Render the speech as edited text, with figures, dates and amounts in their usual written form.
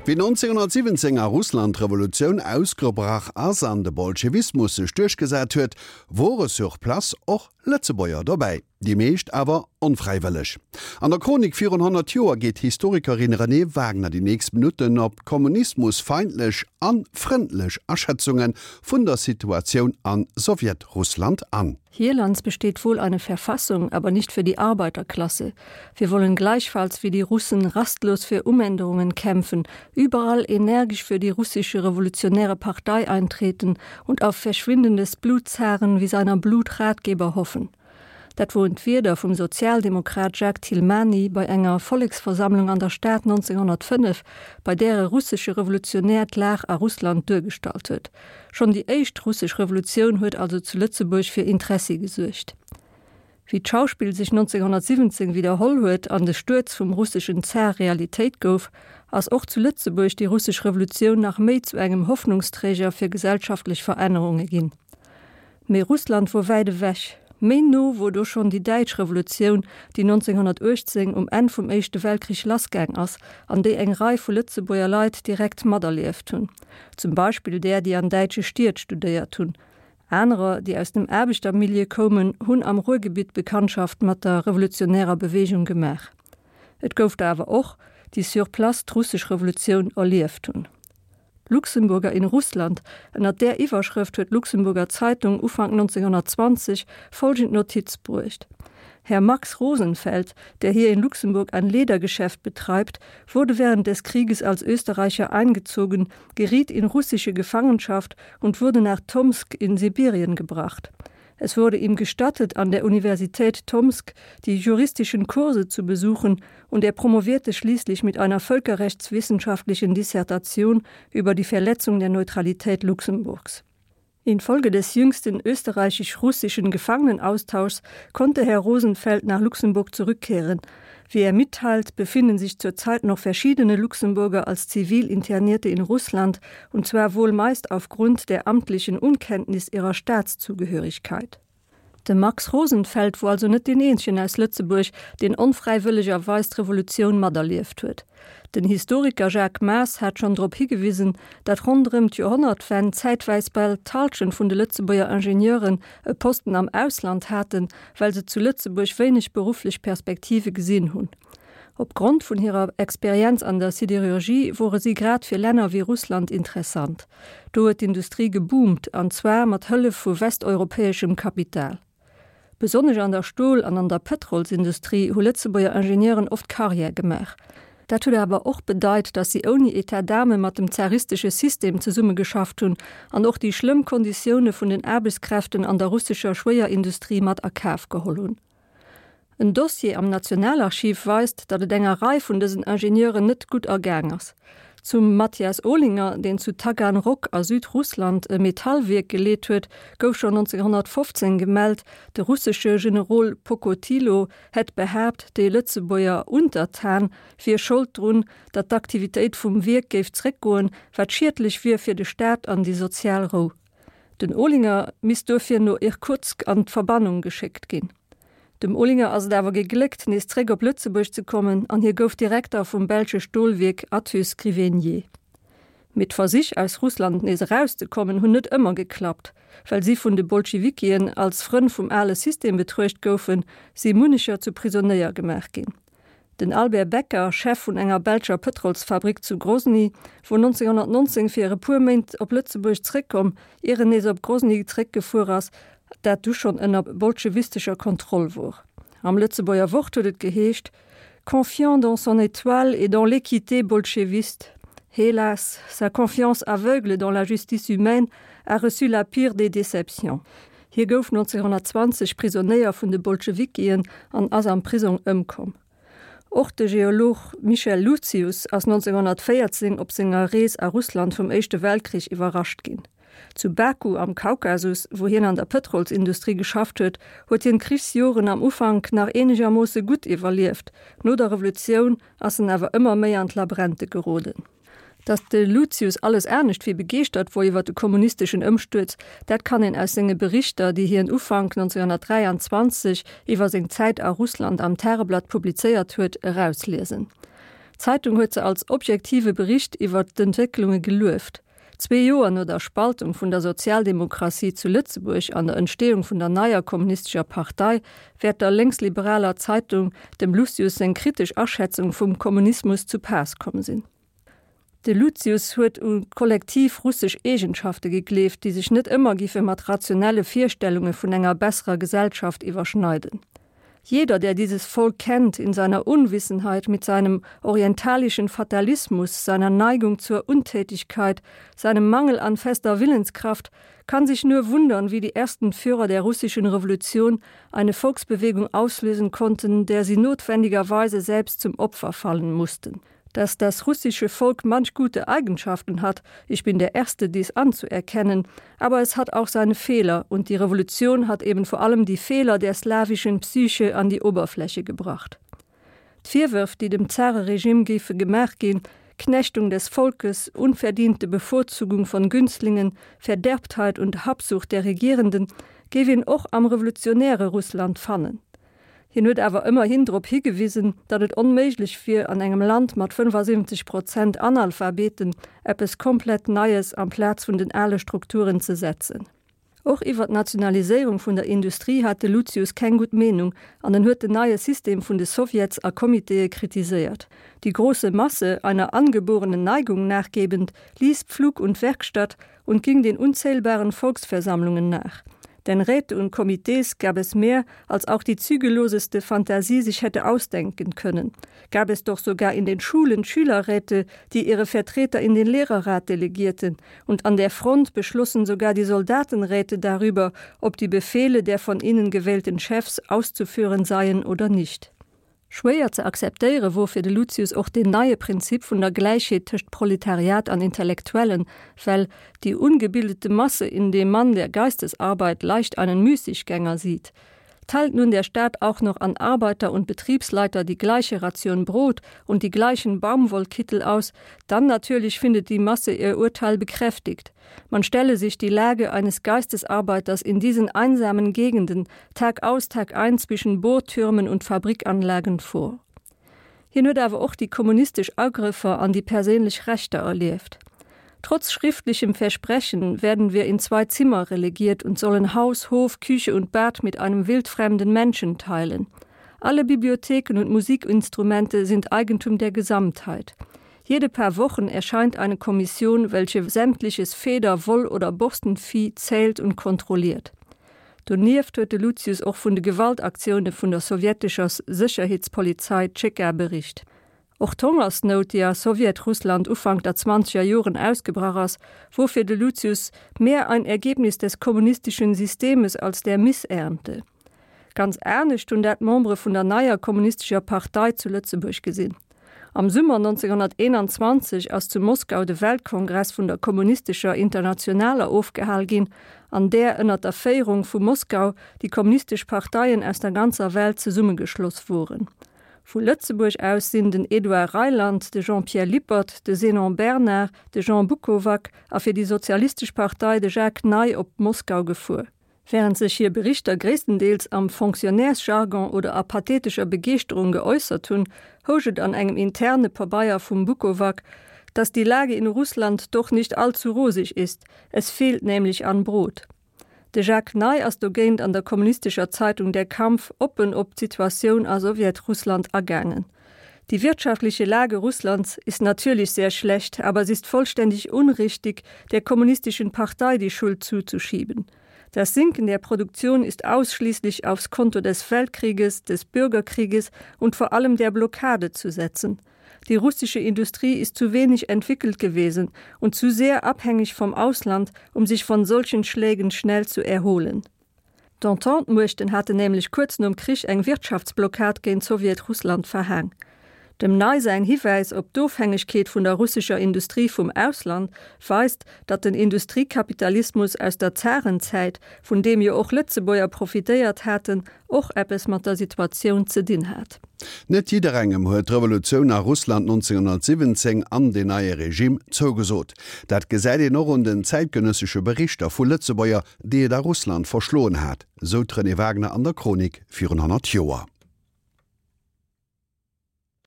Wéi 1917 a Russland d'Revolutioun ausgebrach ass an de Bolschewismus sech duerchgesat huet, wore sur place och Lëtzebuerger dobäi, déi meescht awer onfräiwëlleg. An der Chronik virun 100 Joer geet d'Historikerin Renée Wagner déi nächst Minutten op d'kommunismusfeindlech a frëndlech Aschätzunge vun der Situatioun a Sowjetrussland an. Hierlands besteht wohl eine Verfassung, aber nicht für die Arbeiterklasse. Wir wollen gleichfalls wie die Russen rastlos für Umänderungen kämpfen, überall energisch für die russische revolutionäre Partei eintreten und auf Verschwinden des Blutzaren wie seiner Blutratgeber hoffen. Dat woren d'Wierder vum Sozialdemokrat Jacques Thilmany bei enger Volleksversammlung an der Stad 1905, bei där e russesche Revolutionär d'Lag a Russland duergestallt huet. Schonn déi éischt russesch Revolutioun huet also zu Lëtzebuerg fir Interessi gesuergt. Wéi d'Schauspill sech 1917 widderholl huet an de Stuerz vum russeschen Zar Realitéit gouf, ass och zu Lëtzebuerg déi russesch Revolutioun nach méi zu engem Hoffnungsträger fir gesellschaftlech Verännerunge ginn. Mee Russland wor wäit ewech. Méi no wor do schonn déi däitsch Revolutioun, déi 1918 um Enn vum Éischte Weltkrich lassgaang ass an déi eng Rei vu Lëtzebuerger Leit direkt materlieft hunn. Zum Beispill där, déi an däitsche Stied studéiert hunn. Anerer, déi aus dem Aarbechtermilieu koumen, hunn am Ruhrgebitt Bekanntschaft mat der revolutionärer Beweegung gemaach. Et gouf der awer och, déi sur place d'russesch Revolutioun erlieft hunn. Luxemburger in Russland, ënner där Iwwerschrëft huet d'Luxemburger Zeitung Ufank 1920 folgend Notiz bruecht, Herr Max Rosenfeld, der hier in Luxemburg ein Ledergeschäft betreibt, wurde während des Krieges als Österreicher eingezogen, geriet in russische Gefangenschaft und wurde nach Tomsk in Sibirien gebracht. Es wurde ihm gestattet, an der Universität Tomsk die juristischen Kurse zu besuchen und er promovierte schließlich mit einer völkerrechtswissenschaftlichen Dissertation über die Verletzung der Neutralität Luxemburgs. Infolge des jüngsten österreichisch-russischen Gefangenenaustauschs konnte Herr Rosenfeld nach Luxemburg zurückkehren. Wie er mitteilt, befinden sich zurzeit noch verschiedene Luxemburger als Zivilinternierte in Russland und zwar wohl meist aufgrund der amtlichen Unkenntnis ihrer Staatszugehörigkeit. De Max Rosenfeld wor also net deen eenzegen aus Lëtzebuerg, deen onfräiwëllegerweis d'Revolutioun materlieft huet. Den Historiker Jacques Maas hat schonn drop higewisen, datt ronderëm d'Joerhonnertwenn zäitweis bal d'Hallschent vun de Lëtzebuerger Ingenieuren e Posten am Ausland haten, well se zu Lëtzebuerg wéineg berufflech Perspektive gesinn hunn. Op Grond vun hirer Experienz an der Siderurgie wore si grad fir Länner wéi Russland interessant. Do huet d'Industrie geboomt, an zwar mat Hëllef vu westeuropäeschem Kapital. Besonnesch an der Stol an an der Pëtrolsindustrie hu Lëtzebuerger Ingenieuren oft Karriär gemaach. Dat huet awer och bedeit, datt si ouni Etat d'âme mat dem zaristesche System zesummegeschafft hunn an och déi schlëmm Konditioune vun den Aarbechtskräften an der russescher Schwéierindustrie mat a Kaf geholl hunn. En Dossier am Nationalarchiv weist, datt et enger Rei vun dësen Ingenieuren net gutt ergaang ass. Zum Mathias Olinger, deen zu Taganrog a Südrussland e Metallwierk geleet huet, gouf schonn 1915 gemellt, de russesche Generol Pokotilo hätt behaapt, déi Lëtzebuerger Untertan wier Schold drun, datt d'Aktivitéit vum Wierk géif zréckgoen, wat schiedlech wier fir de Staat an déi sozial Rou. Den Olinger misst duerfir no Irkutsk an d'Verbannung geschéckt ginn. Dem Olinger ass et awer gegléckt, nees zréck op Lëtzebuerg ze kommen an hie gouf Direkter vum belsche Stolwierk Athus Grivegnée. Mee d'Versich, aus Russland nees erauszekommen, hunn net ëmmer geklappt. Well si vun de Bolschewikien als Frënn vum ale System betruecht goufen, si munnecher zu Prisonéier gemaach ginn. Den Albert Becker, Chef vun enger belscher Pëtrolsfabrik zu Grozny, wor 1919 fir e puer Méint op Lëtzebuerg zréckkomm, ier en nees op Grozny zréckgefuer ass, dat du schonn ënner bolschewistescher Kontroll wor. Am Lëtzebuerger Wort huet et geheescht, Confiant dans son étoile et dans l'équité bolcheviste, hélas, sa confiance aveugle dans la justice humaine a reçu la pire des déceptions. Hie gouf 1920 Prisonéier vun de Bolschewikien an ass am Prisong ëmkomm. Och de Geolog Michel Lucius ass 1914 op senger Rees a Russland vum Éischte Weltkrich iwwerrascht ginn. Zu Baku am Kaukasus, wou hien an der Pëtrolsindustrie geschafft huet, huet hien d'Krichsjoren am Ufank nach eenegermoosse gutt iwwerlieft, no der Revolutioun ass en awer ëmmer méi an d'Labrente geroden. Datt de Lucius alles anescht wéi begeeschtert wor iwwer de kommunisteschen Ëmstuerz, dat kann een aus senge Berichter, déi hien Ufank 1923 iwwer seng Zäit a Russland am Tageblatt publizéiert huet, erausliesen. D'Zeitung huet se als objektive Bericht iwwer d'Entwécklunge gelueft. Zwee Joer no der Spaltung vun der Sozialdemokratie zu Lëtzebuerg an der Entsteeung vun der neier kommunistescher Partei wäert der lénksliberaler Zeitung dem Lucius seng kritesch Aschätzung vum Kommunismus zu Paass komm sinn. De Lucius huet u kollektiv russesch Eegenschafte gegleeft, déi sech net ëmmer giffe mat rationelle Virstellunge vun enger besserer Gesellschaft iwwerschneiden. Jeder, der dieses Volk kennt, in seiner Unwissenheit, mit seinem orientalischen Fatalismus, seiner Neigung zur Untätigkeit, seinem Mangel an fester Willenskraft, kann sich nur wundern, wie die ersten Führer der russischen Revolution eine Volksbewegung auslösen konnten, der sie notwendigerweise selbst zum Opfer fallen mussten dass das russische Volk manch gute Eigenschaften hat, ich bin der Erste, dies anzuerkennen, aber es hat auch seine Fehler und die Revolution hat eben vor allem die Fehler der slawischen Psyche an die Oberfläche gebracht. D'Virwërf, déi dem Zareregime géife gemaach ginn, Knechtung des Volkes, unverdiente Bevorzugung von Günstlingen, Verderbtheit und Habsucht der Regierenden, géif een och am revolutionäre Russland fannen. Hien huet awer ëmmerhin drop higewisen, datt et onméiglech wier, an engem Land mat 75 Prozent Analphabeten eppes komplett Neies amplaz vun den ale Strukturen ze setzen. Och iwwer d'Nationaliséierung vun der Industrie hat de Lucius keng gutt Meenung an en huet den neie System vun de Sowjets a Comitéë kritiséiert. Die große Masse, einer angeborenen Neigung nachgebend, ließ Pflug und Werkstatt und ging den unzählbaren Volksversammlungen nach. Denn Räte und Komitees gab es mehr, als auch die zügelloseste Fantasie sich hätte ausdenken können. Gab es doch sogar in den Schulen Schülerräte, die ihre Vertreter in den Lehrerrat delegierten, und an der Front beschlossen sogar die Soldatenräte darüber, ob die Befehle der von ihnen gewählten Chefs auszuführen seien oder nicht. Schwéier ze akzeptéiere wor fir de Lucius och deen neie Prinzip vun der Gläichheet tëscht Proletariat an Intellektuellen, well die ungebildete Masse in dem Mann der Geistesarbeit leicht einen Müßiggänger sieht. Teilt nun der Staat auch noch an Arbeiter und Betriebsleiter die gleiche Ration Brot und die gleichen Baumwollkittel aus, dann natürlich findet die Masse ihr Urteil bekräftigt. Man stelle sich die Lage eines Geistesarbeiters in diesen einsamen Gegenden Tag aus Tag ein zwischen Bohrtürmen und Fabrikanlagen vor. Hien huet awer och déi kommunistesch Agrëffer an déi perséinlech Rechter erlieft. Trotz schriftlichem Versprechen werden wir in zwei Zimmer relegiert und sollen Haus, Hof, Küche und Bad mit einem wildfremden Menschen teilen. Alle Bibliotheken und Musikinstrumente sind Eigentum der Gesamtheit. Jede paar Wochen erscheint eine Kommission, welche sämtliches Feder-, Woll oder Borstenvieh zählt und kontrolliert. Donieft huet de Lucius och vun de Gewaltaktioune vun der sowjetescher Sécherheetspolizei Tscheka bericht. Och d'Hongersnout, déi a Sowjetrussland Ufank der zwanzeger Joren ausgebrach ass, wor fir de Lucius mehr ein Ergebnis des kommunistischen Systemes als der Missernte. Ganz anescht hunn dat d'Membere vun der neier kommunistescher Partei zu Lëtzebuerg gesinn. Am Summer 1921 ass zu Moskau de Weltkongress vun der Kommunistescher Internationaler ofgehal ginn, an där ënner der Féierung vu Moskau déi kommunistesch Parteien aus der ganzer Welt zesummegeschloss woren. Vu Lëtzebuerg aus sinn den Edouard Reiland, de Jean-Pierre Lippert, de Zénon Bernard, de Jean Bukovac a fir déi Sozialistesch Partei de Jacques Ney op Moskau gefuer. Während sech hir Berichter gréisstendeels am Fonctionnairsjargon oder a pathetescher Begeeschterung geäussert hunn, housch et an engem interne Pabeier vum Bukovac, dass die Lage in Russland doch nicht allzu rosig ist, es fehlt nämlich an Brot. De Jacques Ney ass dogéint an der kommunistescher Zeitung Der Kampf oppen op d'Situatioun a Sowjetrussland agaangen. Die wirtschaftliche Lage Russlands ist natürlich sehr schlecht, aber es ist vollständig unrichtig, der kommunistischen Partei die Schuld zuzuschieben. Das Sinken der Produktion ist ausschließlich aufs Konto des Weltkrieges, des Bürgerkrieges und vor allem der Blockade zu setzen. Die russische Industrie ist zu wenig entwickelt gewesen und zu sehr abhängig vom Ausland, um sich von solchen Schlägen schnell zu erholen. D'Entente-Muechten haten nämlech kuerz nom Krich eng Wirtschaftsblockad géint Sowjetrussland verhaang. Dem Ney säin Hiwäis op d'Ofhängegkeet vun der russescher Industrie vum Ausland weist, datt den Industriekapitalismus aus der Zarenzäit, vun deem jo och Lëtzebuerger profitéiert haten, och eppes mat der Situatioun ze dinn hat. Net jidderengem huet d'Revolutioun a Russland 1917 an deen neie Regime zougesot. Dat gesäit een och un den zäitgenëssesche Berichter vu Lëtzebuerger, déi et a Russland verschloen hat, sou d'Renée Wagner an der Chronik virun 100 Joer.